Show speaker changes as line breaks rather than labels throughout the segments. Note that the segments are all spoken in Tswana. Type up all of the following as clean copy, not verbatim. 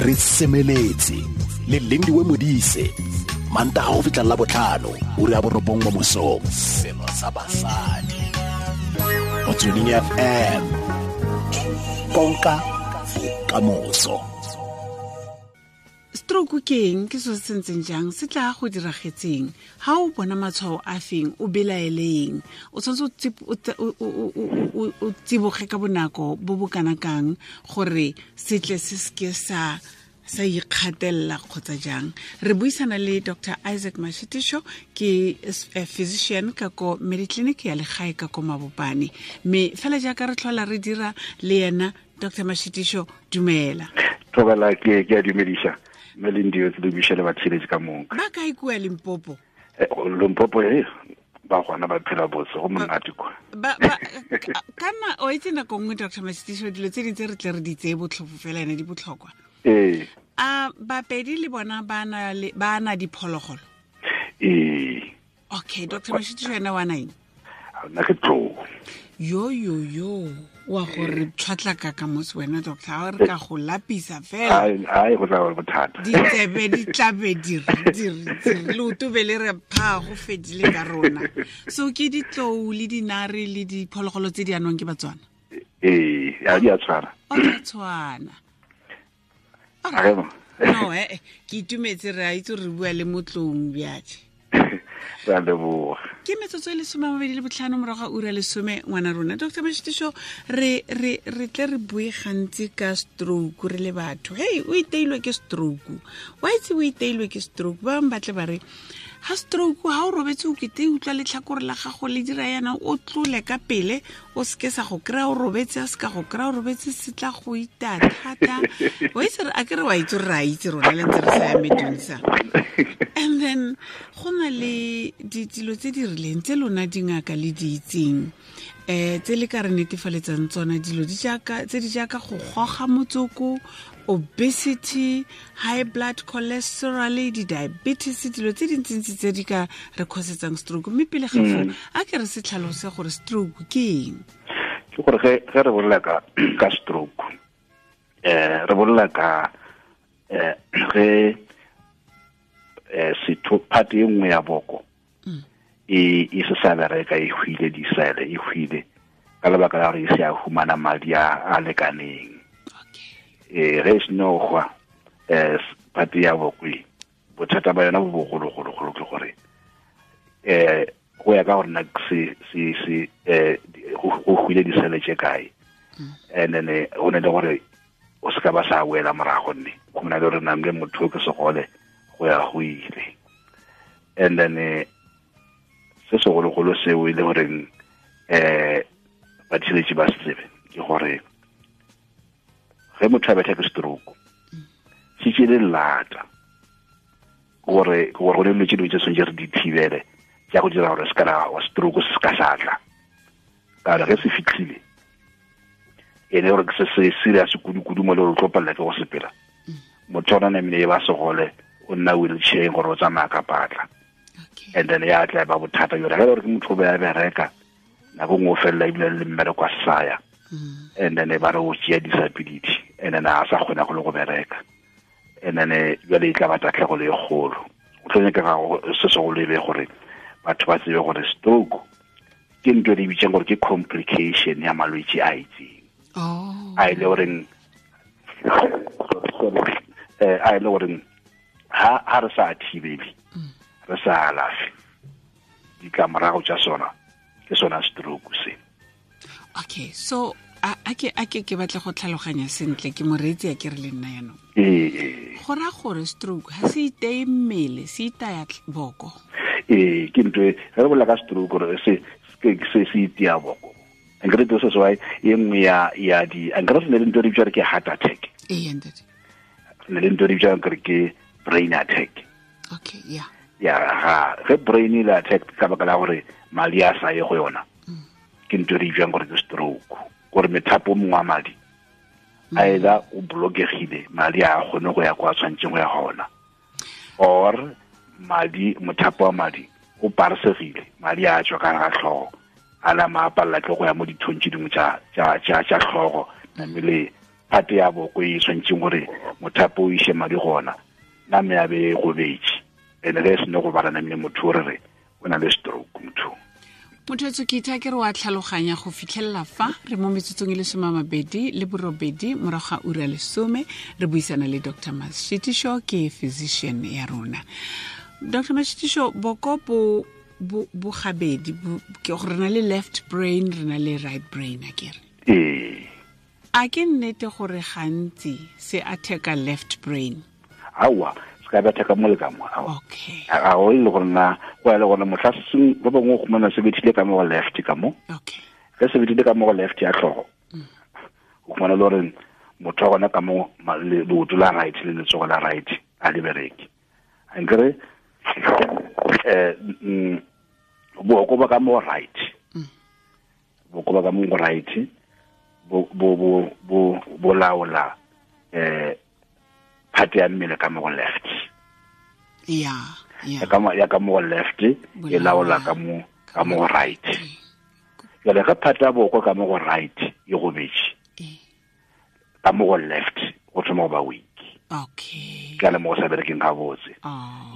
Re semeletse le Lindiwe Modise, Mantaga go fitlha la botlhano, ura ya 9 mo mosong. Selo sa basadi Motsweding FM, konka bokamoso.
Stroke ke eng? Ke so se ntseng jang? Se tla go diragetseng? Ha o bona matshwao a feng, o belaeleng? O tshwanetse o tsiboge ka bonako bo bo kana kang gore se tle se seke sa ikgatelela kgotsa jang? Re buisana le Dr. Isaac Mashitisho, ke physician ka ko Mediclinic ya legae ka ko Mabopane. Mme fela jaaka re tlhola re dira le yena, Dr. Mashitisho, dumela.
Thobela, ke a dumedisa. Mme le ndio tse di le batshiretsi ka moka.
Ba kae kua Limpopo?
Limpopo e ba gona ba phela botse, go monate kwa.
Kana o itse nako nngwe, Dr. Mashitisho, dilo tse dintse re tle re di tseye botlhofo fela, ene di botlhokwa.
Ee.
A bapedi le bona ba na diphologolo?
Ee.
Okay, Dr. Mashitisho ena wa nang?
Nna ke tlou.
Yo yo yo, wa gore tshwatlaka ka mose wena, doctor, ha re ka go lapisa fela.
Ai, go tla ba bothata.
Ditsebe di tlabe di re leoto be le re pha, go fedile ka rona. So ke ditlou le dinare le diphologolo tse di anwang ke Batswana?
Ee, a di a tshwana.
O di a tshwana. No, ke itumetse, re a itse re bua le motlong bjatše.
Re a leboga.
Ke metsotso e 25 morago ga ura 10, ngwana rona. Dr. Mashitisho, re tle re bue gantsi ka stroke re le batho. Hey, o iteilwe ke stroke. Wa itse o iteilwe ke stroke. Ba bangwe ba tle ba re, ha stroke ha o robetse o kete utlwa letlhakore la gago le dira yana, o tlole ka pele, o seke sa go kry-a o robetse, a seka go kry-a o robetse, se tla go ita thata. O itse a ke re wa itse re a itse rona le ntse re sa ya medunsa. And then go na le dilo tse di rileng tse lona dingaka le di itseng, tse le ka re netefaletsang tsona, dilo tse di jaaka go goga motsoko, obesity, high blood cholesterol, di-diabetes, dilo tse dintsintsi tse di ka re cause-tsang stroke. Mme pele ga foo, a ke re se tlhalose gore stroke ke eng?
Ke gore ge re bolela ka stroke, re bolela ka ge setho part e nngwe ya boko e se sa bereka, e hwile disele, e hwile ka lebaka la gore e se a humana madi a lekaneng. Ge e seno hwa part ya boko e, bothata ba yona bo bogologologolo ke gore go ya ka gore na se go hwile disele tše kae. And then go ne le gore o se ka ba sa boela morago, nne go na le gore namle motho ke segole go ya go ile. And then se segologolo seo e le goreng batshiretsi ba se tsebe ke gore ge motho a betha ke stroke, se tšele lata gore go ne dilo tse dingwe tse tshwanetse re di thibele tša go dira gore se ka stroke se ka sa tla. Ka gore ge se fitlhile, e le gore ke se se serious kudu-kudu mo le gore o tlo palela ke go sepela. Motho ona namile e ba segole, o nna wheelchair gore o tsamaya ka patla. And then ya tla ba bothata jore ge gore ke motho o be a bereka nako nngwe o felela ebile le mmereko a saya. And then ba re o tšea disability, and then a sa kgona go le go bereka. And then jwale e tla ba tatlhegelo e kgolo. O tlo nyakega se segolo e be gore batho ba tsebe gore stroke ke ntho e re bitsang gore ke complication ya malwetse a itseng. A e le goreng a e le goreng ha re sa thibele, re sa alafe, ditlamorago tša sona ke sona stroke se.
Okay, so a ke batla go tlhaloganya sentle, ke moreetsi a ke re le nna yanong. Go raya gore stroke ha se iteye mmele, se itaya boko.
Ee, ke ntho e ge re bolela ka stroke gore se se itea boko. Nkere se se why e nngwe ya di nkere se ne le ntho e re bitsang ke heart attack.
Ee, ntate.
Ne le ntho e re bitsang gore ke brain attack.
Okay, yeah.
Ya ga ge brain e le attack ka baka la gore madi a sa ye go yona, ke ntho e re bitsang gore ke stroke. Gore methapo mongwe wa madi a either o blokegile, madi a kgone go ya kwa tshwanetseng go ya gona, or madi mothapo wa madi o parsegile, madi a tswa ka ga tlhogo, a nama a palela ke go ya mo dithong tse dingwe tša tlhogo, namele phate ya boko e tshwanetseng gore mothapo o ise madi gona name ya be e gobetse ene ge e sene go bala namile motho o re re o na le stroke motho.
Motho etso ke itha ke re wa tlhaloganya go fitlhelela fa re mo metsotsong e le 28 morago ga ura 10 re buisana le Dr. Mashitisho, ke physician ya rona. Dr. Mashitisho, boko bo bo gabedi, ke gore re na le left brain, re na le right brain, a kere?
Ee.
A ke nnete gore gantsi se attack-a left brain?
Aowa, se ka betha ka mo le ka mo.
Okay.
A o ile gore na go ya le gona motlha seng ba bangwe go khumana se bethile ka mo go left ka mo.
Okay.
Ge se bethile ka mo go left ya tlhogo. O khumana le gore motho wa gona ka mo leoto la right le letsogo la right a le bereke. Ankere boko ba ka mo right. Boko ba ka mo right bo bo bo bo bo laola phate ya mmele ka mo go left.
Ya, ya.
Ya ka mo go left e laola ka mo go right. Jwale ge phate ya boko ka mo go right e gobetse, ka mo go left go thoma go ba weak.
Okay.
Ka le mo go sa berekeng gabotse.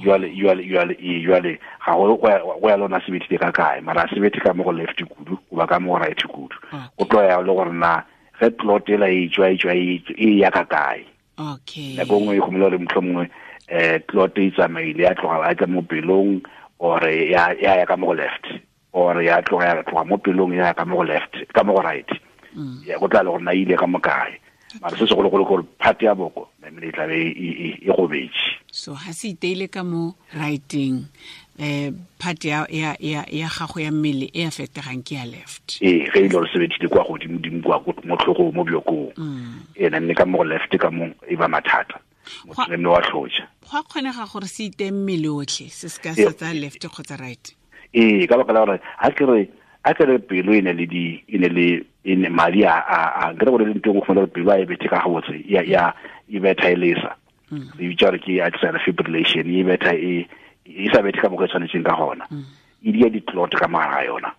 Jwale ga go ya lona se bethile ka kae, mara se bethe ka mo go left kudu goba ka mo go right kudu. Go tlo ya le gore na ge clot ela e tswa e ya ka kae.
Okay.
Nako nngwe e gomela gore mohlomongwe clot e tsamaile ya tloga ya tla mo pelong, or ya ya ka mo go left, or ya tloga mo pelong ya ka mo go left, ka mo go right. Ya go tla le gore na ile ka mo kae. Mara se segologolo gore phate ya boko namile e tlabe e gobetse.
So ha se iteile ka mo righting, phate ya gago ya mmele e affectegang ke ya left.
Ee, ge e le gore se bethile kwa godimo-dimo kwa mo tlhogong mo bjokong. Ee, namile ka mo go left ka mo e ba mathata. Motho namile wa tlhotša.
Go a kgonega gore se itee mmele otlhe, se se ka sa tsaya left kgotsa right?
Ee, ka baka la gore ha ke re pelo e ne le e madi a nkere gore le ntho e nngwe gore pelo a e bethe ka gabotse ya e betha e lesa. Re bitsa gore ke atrial fibrillation, e betha e sa bethe ka mokgwa e tshwanetseng ka gona. E dia di-clot ka mogare ga yona.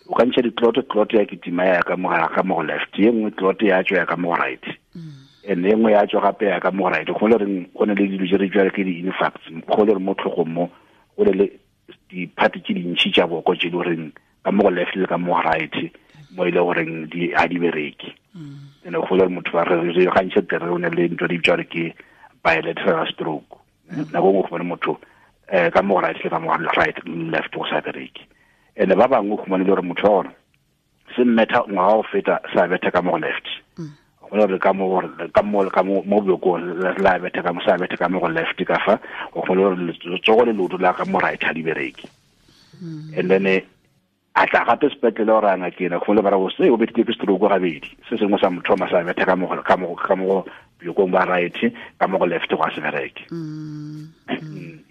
O ka ntšha di-clot, clot ya kitima ya ka mogare ka mo go left, ye nngwe clot ya tswa ya ka mo go right. And e nngwe ya tswa gape ya ka mo go right. Go le reng go ne le dilo tse re bitswa ke di-infarcts, go le re mo tlhogong mo go le le diphate tse dintšhi tša boko tse di goreng ka mo go left le ka mo go right mo ile goreng di a di bereke. Ene go le motho ba re gantši tere o ne le ntho di bitswa ke bilateral stroke. Nako nngwe go motho ka mo go right le ka mo go right left go sa bereke. Ene ba bangwe go le gore motho wa gona se mmetha ngwaga go feta sa betha ka mo go left. Go le ka mo ka mo mo bjokong la betha ka mo sa betha ka mo go left ka fa go le gore letsogo le leoto la ka mo right ha di bereke. And then a tla gape sepetlele gore a ngakena go le bara go se o bethile ke stroke gabedi, se sengwe sa mothoma sa betha ka mo ka mo bjokong ba right ka mo go left go a se bereke.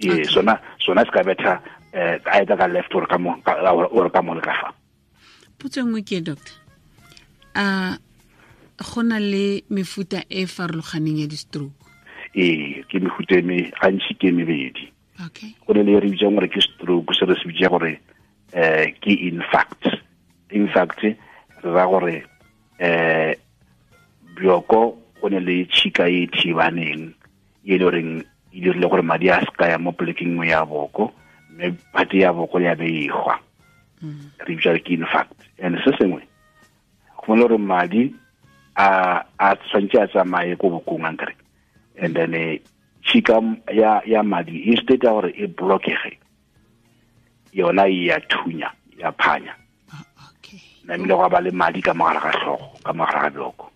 Ee, sona se ka betha a eta ka left or ka mo or ka mo le ka fa.
Potso nngwe ke doctor, a go na le mefuta e farologaneng ya di-stroke?
Ee, ke mefuta e me gantši ke mebedi.
Okay.
Go ne le re bitsang gore ke stroke, se re se bitsa gore ke infarct. Infarct re ra gore bjoko go ne le tšhika e thibaneng e le goreng e dirile gore madi a se ka ya mo polekeng nngwe ya boko, mme phate ya boko ya be e hwa. Re bitsa ke infarct. And se sengwe go ne gore madi a tshwanetse a tsamaye ko bokong ankere, and then tšhika ya madi instead ya gore e blockege yona e ya thunya ya phanya.
Okay.
Namile go ba le madi ka mogare ga tlhogo, ka mogare ga bjoko.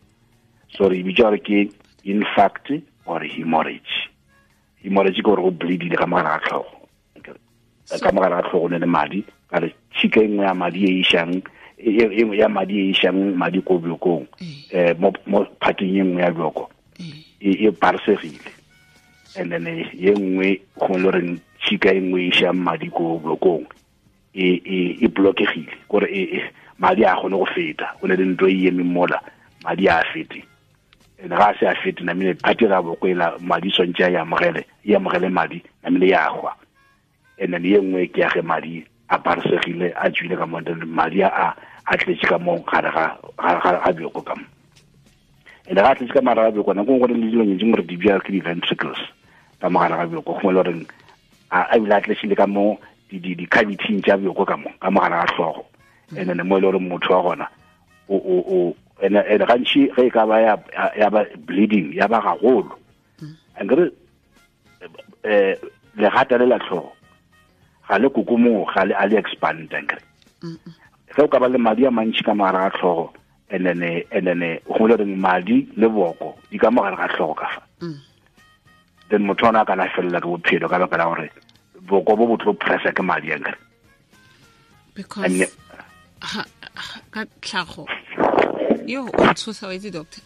So re bitsa gore ke infarct or hemorrhage. Hemorrhage ke gore go bleedile ka mogare ga tlhogo. Ka mogare ga tlhogo ne le madi, ka re tšhika e nngwe ya madi e išang ya madi e išang madi ko bjokong, mo phateng e nngwe ya bjoko e parsegile. And then ye nngwe go le reng tšhika e nngwe e išang madi ko bjokong e blockegile, gore madi a kgone go feta. Go ne le ntho e emeng mola, madi a fete. And ga se a fete namile phate ga boko ela madi tshwanetse a e amogele madi namile ya hwa. And then ye nngwe ke ya ge madi a parsegile a tswile ka mo, madi a tletse ka mo gare ga bjoko ka mo. And ga tletse ka mogare ga bjoko, nako nngwe go le dilo tse dingwe re di bja ke di-ventricles ka mogare ga bjoko, gongwe le goreng a ebile a tletsile ka mo di-cavity tša bjoko ka mo ka mogare ga tlhogo. And then mo e le gore motho wa gona o and gantši ge e ka ba ya ba bleeding ya ba gagolo, ankere legata le la tlhogo ga le kokomoga, ga le a le expand, ankere ge o ka ba le madi a mantši ka mogare ga tlhogo, and then go le reng madi le boko di ka mogare ga tlhogo ka fa, then motho ona a ka felela ke bophelo ka baka la gore boko bo bo tlo pressa ke madi, ankere.
Because ka tlhago yo o tshosa wa itse doctor,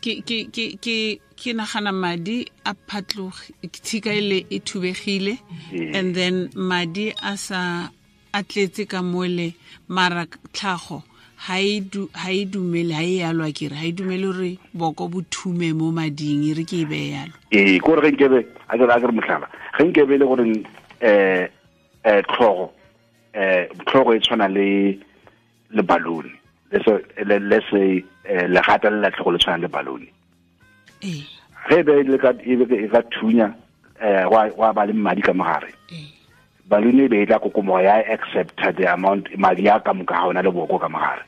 ke nagana madi a phatloge, tshika ile e thubegile, and then madi a sa a tletse ka mole, mara tlhago ha e dumele, ha e yalo akere, ha e dumele gore boko bo thume mo mading, e re ke e beye yalo.
Ee, ke gore ge nkebe a kere mohlala, ge nkebe le gore tlhogo tlhogo e tshwana le balloon, le se legata le la tlhogo le tshwana le balloon. Ge be le ka e ka thunya wa ba le madi ka mogare, balloon e be e tla kokomoga ya accept the amount madi a ka moka ga ona le boko ka mogare.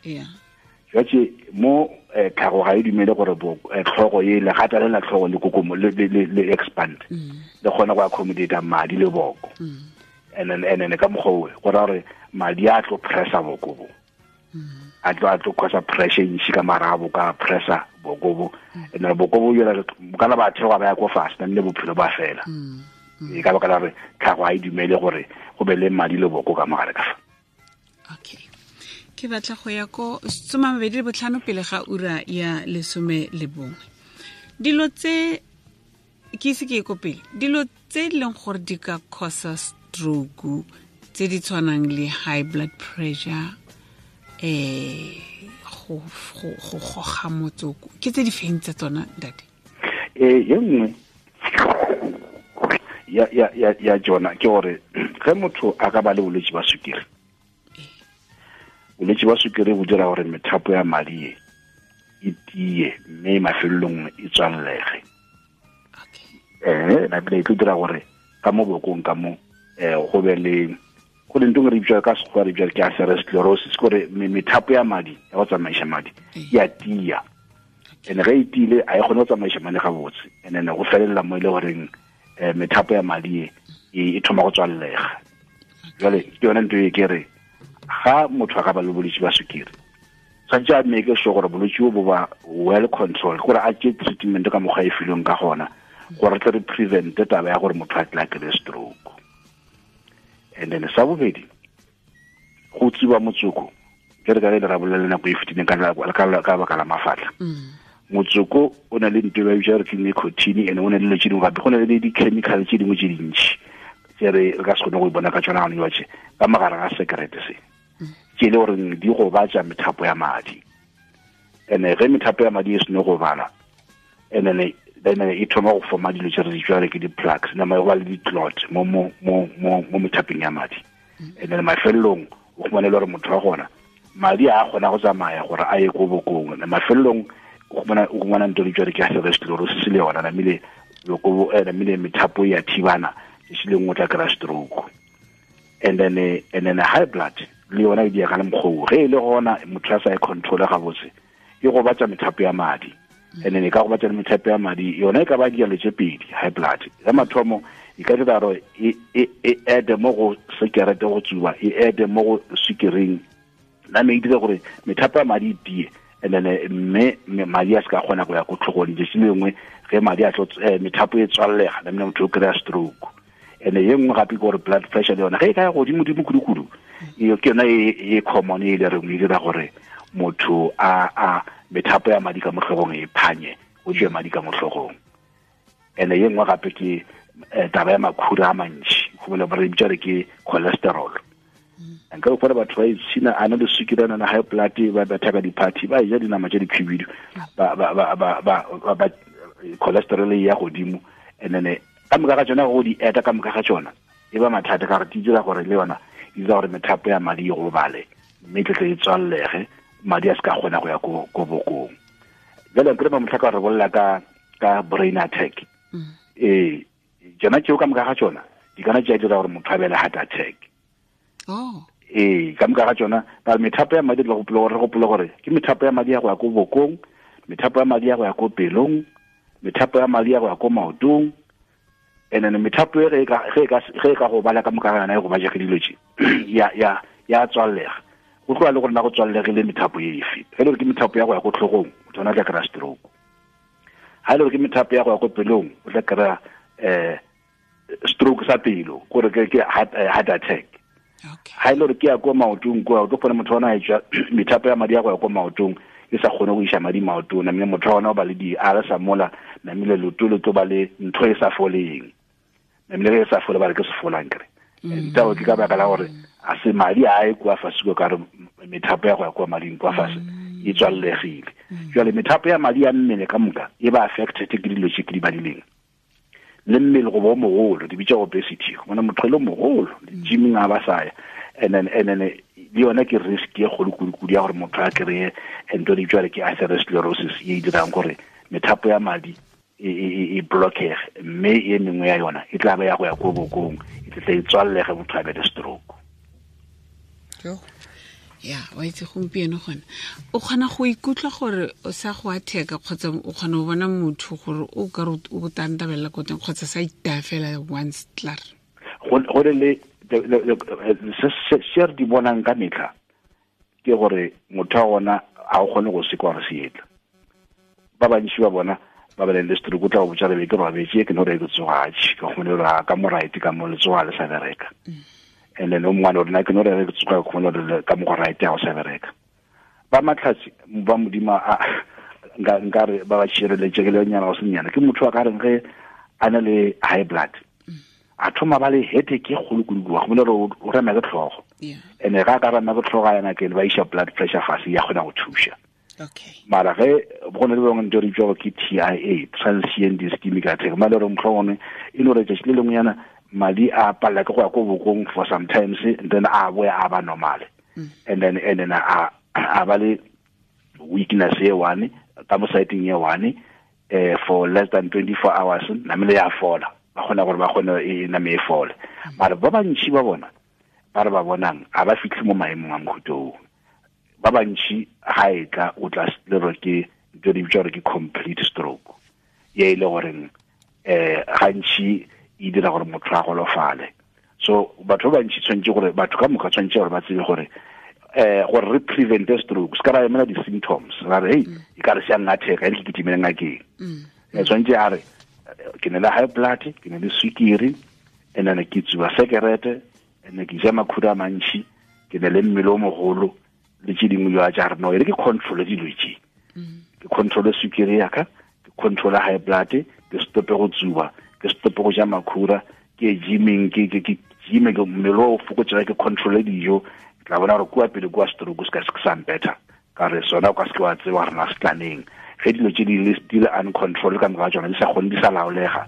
Jwatse mo tlhago ga e dumele gore tlhogo e legata le la tlhogo le kokomo le expand, le kgona go accommodate madi le boko. And then ka mokgwa go ra gore madi a tlo pressa boko bo, a tlo causa pressure ntši ka marabo ka pressa boko bo, and then boko bo yona kana ba theoga ba ya ko fast le bophelo ba fela. E ka baka la gore tlhago ga e dumele gore go be le madi le boko ka mogare ka fa.
Okay, ke batla go ya ko 25 pele ga ura ya 11. Dilo tse ke ise ke ye ko pele, dilo tse e leng gore di ka causa stroke tse di tshwanang le high blood pressure, go goga motsoko, ke tse di feng tsa tsona ntate?
Ye nngwe ya jona ke gore ge motho a ka ba le bolwetse ba sukiri, bolwetse ba sukiri bo dira gore methapo ya madi e tie mme mafelelong e tswalege. Nabile e tlo dira gore ka mo bokong ka mo go be le go le ntho re bitsa ka sekgowa re bitsa ke atherosclerosis, gore methapo ya madi ya go tsamaisa madi ya tia, and ge e tiile a e kgone go tsamaisa madi gabotse, and then go felela mo e le goreng methapo ya madi e thoma go tswallega. Jwale ke yone ntho e ke re ga motho a ka ba le bolwetse ba sukiri, tshwanetse a make sure gore bolwetse bo ba well controlled, gore a tšee treatment ka mokgwa e filweng ka gona, gore tle re prevent taba ya gore motho a tla kry stroke. And then sa bobedi, go tsuba motsoko, ke re ka le ra bolela nako e fetileng ka baka la mafatlha. Motsoko o na le ntho e ba bitsa gore ke nicotine, and o na le dilo tse dingwe gape, go na le di-chemical tse dingwe tse dintši tse re ka se kgone go e bona ka tsona gone jwatše ka mogare ga sekerete se, tse e le gore di gobatša methapo ya madi. And ge methapo ya madi e seno go bala, and then e thoma go forma dilo tse re di jwale ke di-plugs, nama go ba le di-clot mo methapeng ya madi. And then mafelelong o khumane le gore motho wa gona madi a kgona go tsamaya gore a ye ko bokong, mafelelong o khumana ntho di jwale ke atherosclerosis le yona, namile boko namile methapo ya thibana, se le nngwe tla kry-a stroke. And then high blood le yona e dia ka le mokgwa ge e le gona motho a sa e control gabotse, e gobatša methapo ya madi. And then e ka gobatša le methapo ya madi yona e ka ba dialo tše pedi. High blood ya mathomo e ka dira gore e add mo go sekerete go tsuba, e add mo go sukiring, name e dira gore methapo ya madi e tie, and then mme madi a se ka kgona go ya ko tlhogong. Letšatši lengwe ge madi a tlo methapo e tswallega, namile motho o kry-a stroke. And ye nngwe gape ke gore blood pressure le yona ge e ka ya godimo-dimo kudu-kudu, ke yona e common e le reng e dira gore motho a methapo ya madi ka mo tlhogong e phanye, o tswe madi ka mo tlhogong. And ye nngwe gape ke taba ya makhura a mantši, go bole re bitsa re ke cholesterol. Nka o fara batho ba itshina a na le sukiri, a na le high blood, ba betha ka di-party, ba ja dinama tse dikhibidu, ba cholesterol e ya godimo. And then ka moka ga tsona go di eta ka moka ga tsona e ba mathata, ka gore di dira gore le yona e dira gore methapo ya madi e gobale, mme tle e tswallege, madi a se ka kgona go ya ko bokong. Jale nkere ba motlhaka re bolela ka brain attack. Ee, tsona tseo ka moka ga tsona di kana tša dira gore motho a be le heart attack.
Oh.
Ee, ka moka ga tsona ba methapo ya madi, re gopole gore ke methapo ya madi ya go ya ko bokong, methapo ya madi ya go ya ko pelong, methapo ya madi ya go ya ko maotong, and then methapo e ge e ka go bala ka moka ga yona e go baja ke dilo tše ya tswallega. Go tloa le gore na go tswallegile methapo e efe. Ge le gore ke methapo ya go ya ko tlhogong, motho ona tla kry-a stroke. Ha le gore ke methapo ya go ya ko pelong, o tla kry-a stroke sa pelo, gore ke heart attack. Ha ile gore ke ya ko maotong kwa, o tlo kgona motho ona a tswa methapo ya madi ya go ya ko maotong e sa kgone go iša madi maotong, namile motho ona o ba le di-ulcer mola, namile leoto le tlo ba le ntho e sa foleng, namile ge e sa fole ba re ke sefolang kere. Ntao ke ka baka la gore a se madi a e kwa fase ko ka re methapo ya go ya kwa mading kwa fase e tswallegile. Jwale methapo ya madi ya mmele ka moka e ba affected ke dilo tse ke di badileng. Le mmele go bo mogolo, di bitsa obesity, bona motho le mogolo gymming a ba saya, and then le yona ke risk e kgolo kudu ya gore motho a kry-e ntho di bitswa ke atherosclerosis e dirang gore methapo ya madi e blockege, mme e mengwe ya yona e tla ba ya go ya ko bokong, e tla e tswallege motho a be le stroke.
Ya, wa itse gompieno gona o kgona go ikutlwa gore o sa go atheka, kgotsa o kgona go bona motho gore o ka re o tantabella ko teng, kgotsa sa itaya fela once klaar.
Go le se re di bonang ka metlha ke gore motho wa gona a o kgone go sekwa gore se etla. Ba bantši ba bona ba ba le stroke, o tla go botsa re be ke robetse, ke no re ke tsoga, ke kgone gore ka mo right ka mo letsoga le sa bereka. And then o mongwe rena ke no re ke tsoga kgone gore ka mo go right ya go sa bereka. Ba matlhatsi ba modimo a nka re ba ba tshireletse ke le nyana go senyana, ke motho wa ka reng ge a na le high blood, a thoma ba le headache e kgolo kudu, wa go gore o rema ke tlhogo. And ga ka rema ke tlhogo yana ke ba iša blood pressure fase ya kgona go thuša.
Okay.
Mara ge go ne le bangwe ntho re bitswa ke TIA, transient ischemic attack, mara re motlhongwe e no re tšatši le lengwe yana madi a palela ke go ya ko bokong for sometimes, and then a boya a ba normal. And then a ba le weakness e one ka mo siteng e one for less than 24 hours, namile ya fola, ba kgona gore ba kgone e name e fole. Mara ba bantši ba bona ba re ba bonang a ba fitlhe mo maemong a mohuta oo. Ba bantši ga e tla o tla le re ke ntho di bitswa gore ke complete stroke, ye e le goreng gantši e dira gore motho a golofale. So batho ba bantši tshwanetse gore batho ka moka tshwanetse gore ba tsebe gore gore re prevent stroke, se ka ra emela di-symptoms ra re hey e ka re se a ngatheka e ke kitimele ngakeng. Tshwanetse a re ke ne le high blood, ke ne le swikiri, and then ke tsuba sekerete, and ke ja makhura a mantši, ke ne le mmele o mogolo le tse dingwe jwa tša re no e re ke control dilo tše, ke control swikiri ya ka, ke control high blood, ke stope go tsuba, ke stope go ja makhura, ke gymming, ke gymme ke mmele o fokotsega, ke control dijo, ke tla bona gore kua pele kua stroke se ka se sa mpetha, ka re sona o ka se ke wa tseba gore na se tlaneng. Ge dilo tše di le uncontrol ka moka ga tsona, di sa kgone, di sa laolega,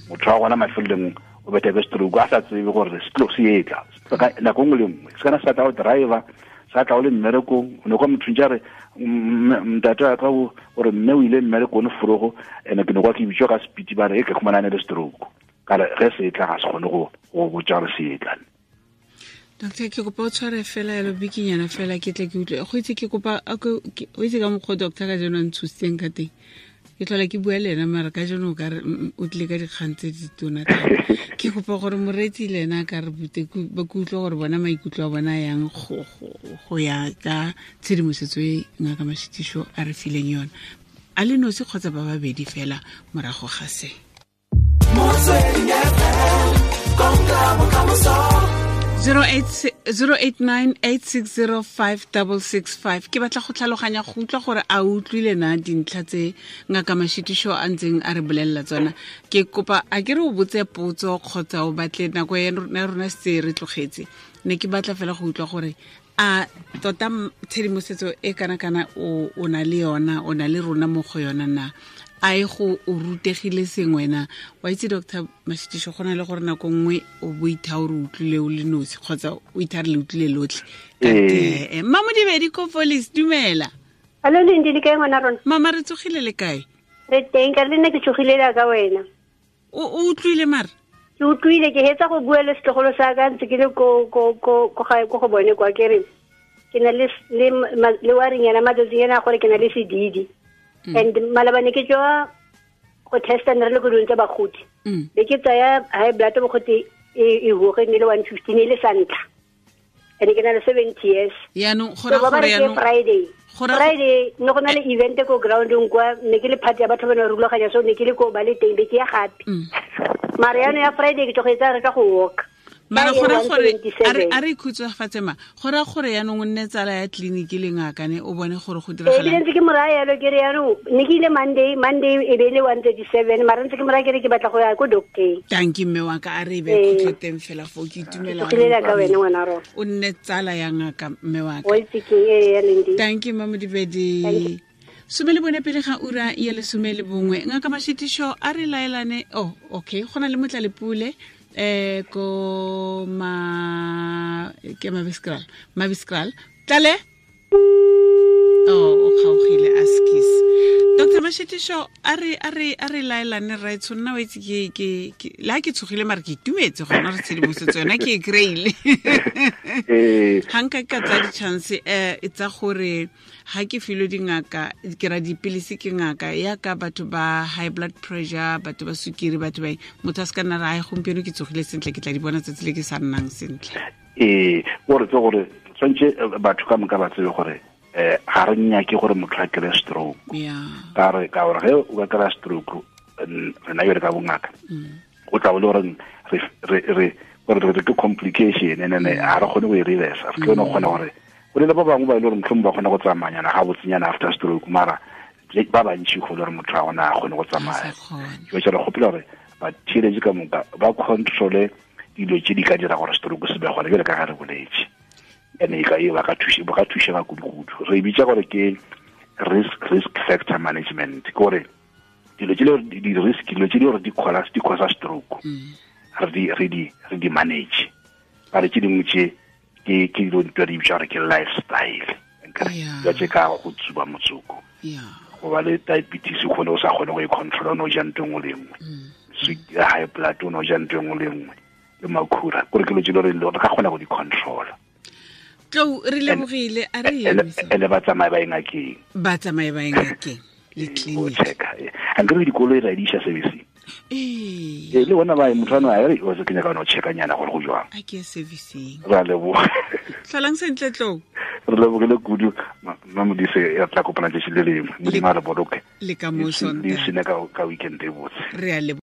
motho wa gona mafelelong o betha ke stroke a sa tsebe gore se tlo se etla nako nngwe le nngwe. Se kana sa tla o driver, sa tla o le mmerekong, o ne kwa motho ntse re ntate wa ka gore mme o ile mmerekong forogo, ene ke ne kwa ke bitswa ka speed ba re e ke khumana le stroke, ka re ge se etla ga se kgone go botsa gore se etla.
Doctor, ke kopa o tshware fela yalo bikinyana fela ke tle ke utlwe. Go itse ke kopa o itse ka mokgwa doctor ka jeno a ntshositseng ka teng. Ke tlhola ke bua le ena mara ka jeno o ka re o tlile ka dikgang tse di tona thata. Ke kopa gore moreetsi le ena a ka re bute, ba ke utlwe gore bona maikutlo a bona yang go ya ka tshedimosetso e Ngaka Mashitiso a re fileng yona. A le nosi kgotsa ba babedi fela morago ga se.
Motsweding FM, konka bokamoso.
0898605665. Ke batla go tlhaloganya go utlwa gore a utlwile na dintlha tse Ngaka Mashitiso a ntseng a re bolelela tsona. Ke kopa a ke re o botse potso kgotsa o batle nako ya rona se re tlogetse. Ne ke batla fela go utlwa gore a tota tshedimosetso e kana-kana o na le yona, o na le rona mo go yona na, a e go o rutegile sengwe na. Wa itse Doctor Mashitiso, go na le gore nako nngwe o bo itha o re utlwile o le nosi kgotsa o itha re le utlwile lotlhe. Ka tee. Mmamodibedi ko Police, dumela.
Hallo Lindi, le kae ngwana rona?
Mama re tsogile le kae?
Re teng, ka le nna ke tsogile la ka wena.
O utlwile mara?
Ke utlwile, ke hetsa go bua le setlogolo sa ka ntse ke le ko ko ko ko gae ko go bone kwa ke re ke na le le waring yana matsatsing ana gore ke na le sedidi. And malabane ke tswa go testa ne re le ko dilong tsa bagodi. Be ke tsaya high blood bogote e hoge ne le 115 e le sa ntlha. And ke na le 70 years.
Yaanong go ra gore yaanong
Friday. Friday no go na le event ko groundong kwa ne ke le party ya batho ba ne rulaganya so ne ke le ko ba le teng be ke ya gape. Mara yaanong ya Friday ke tlogetsa re ka go walk.
Mara go ra gore a re ikhutsofatse ma go ra gore yaanong o nne tsala ya tleliniki le ngaka ne o bone gore go diragala.
Ebile ntse ke moraya yalo ke re yaanong ne ke ile Monday e be le 137 mara ntse ke moraya ke re ke batla go ya ko doctor.
Thank you mme wa ka a re be khutlo teng fela fo ke itumela.
Ke ka wena ngwana rona.
O nne tsala ya ngaka mme wa ka.
O itse ke e ya Lindi.
Thank you Mama Modibedi. 11 pele ga ura ya 11. Ngaka Mashitisho a re laelane. Oh okay, go na le Motlalepule ko ma ke Mabiskral tlale oh o kgaogile askis. Dr. Mashitisho a re laelane right so nna o itse ke la ke tshogile mara ke itumetse gona re tshedimosetso yona ke e kry-ile. Ga nka ka tsaya di-chance tsa gore ga ke filwe dingaka ke ra dipilisi ke ngaka ya ka batho ba high blood pressure, batho ba sukiri, batho ba motho a se ka nna ra gompieno ke tsogile sentle ke tla di bona tsatsi le ke sa nnang sentle.
Gore tse gore tshwanetse batho ka moka ba tsebe gore ga re nyake gore motho a kry stroke. Ka gore ge o ka kry stroke rena yone ka bongaka o tla bo le goreng re ke complication and then ga re kgone go e reverse. Re tlo no kgona gore go le ba bangwe ba ile gore mohlomong ba kgona go tsamayana ga botsenyana after stroke mara ba bantši go le gore motho a gona a kgone go tsamaya. Ke re gopela gore ba theeletše ka moka ba controle dilo tse di ka dira gore stroke se be gona jale ka ga re boletse. Ene e ka e ba ka thušega kudu-kudu. Re bitsa gore ke risk factor management, ke gore dilo tse le di-risk dilo tse di gore di causa stroke re di manage. Ba re tse dingwe tse ke dilo di bitsa gore ke lifestyle, dilo tse ka go tsuba motsoko, go ba le diabetes o kgone o sa kgone go e controla o no ja ntho engwe le engwe, high blood o no ja ntho engwe le engwe le makhura, kore ke dilo tse le re ka kgona go di controla.
Tlou re lebogile a re
ene ba tsamaye ba ngakeng.
Ba tsamaye ba ngakeng le clinic.
A nkere dikoloi ra di isa servicing. Le bona ba motho ano a re o se kenya ka no checka nyana gore go jwang.
A ke servicing.
Ra leboga.
Tlholang sentle Tlou.
Re lebogile kudu Mma Modise ya tla kopana tse le lengwe. Modimo a re boloke.
Le ka mo
Sontaga. Le sene ka weekend e botse.
Re a leboga.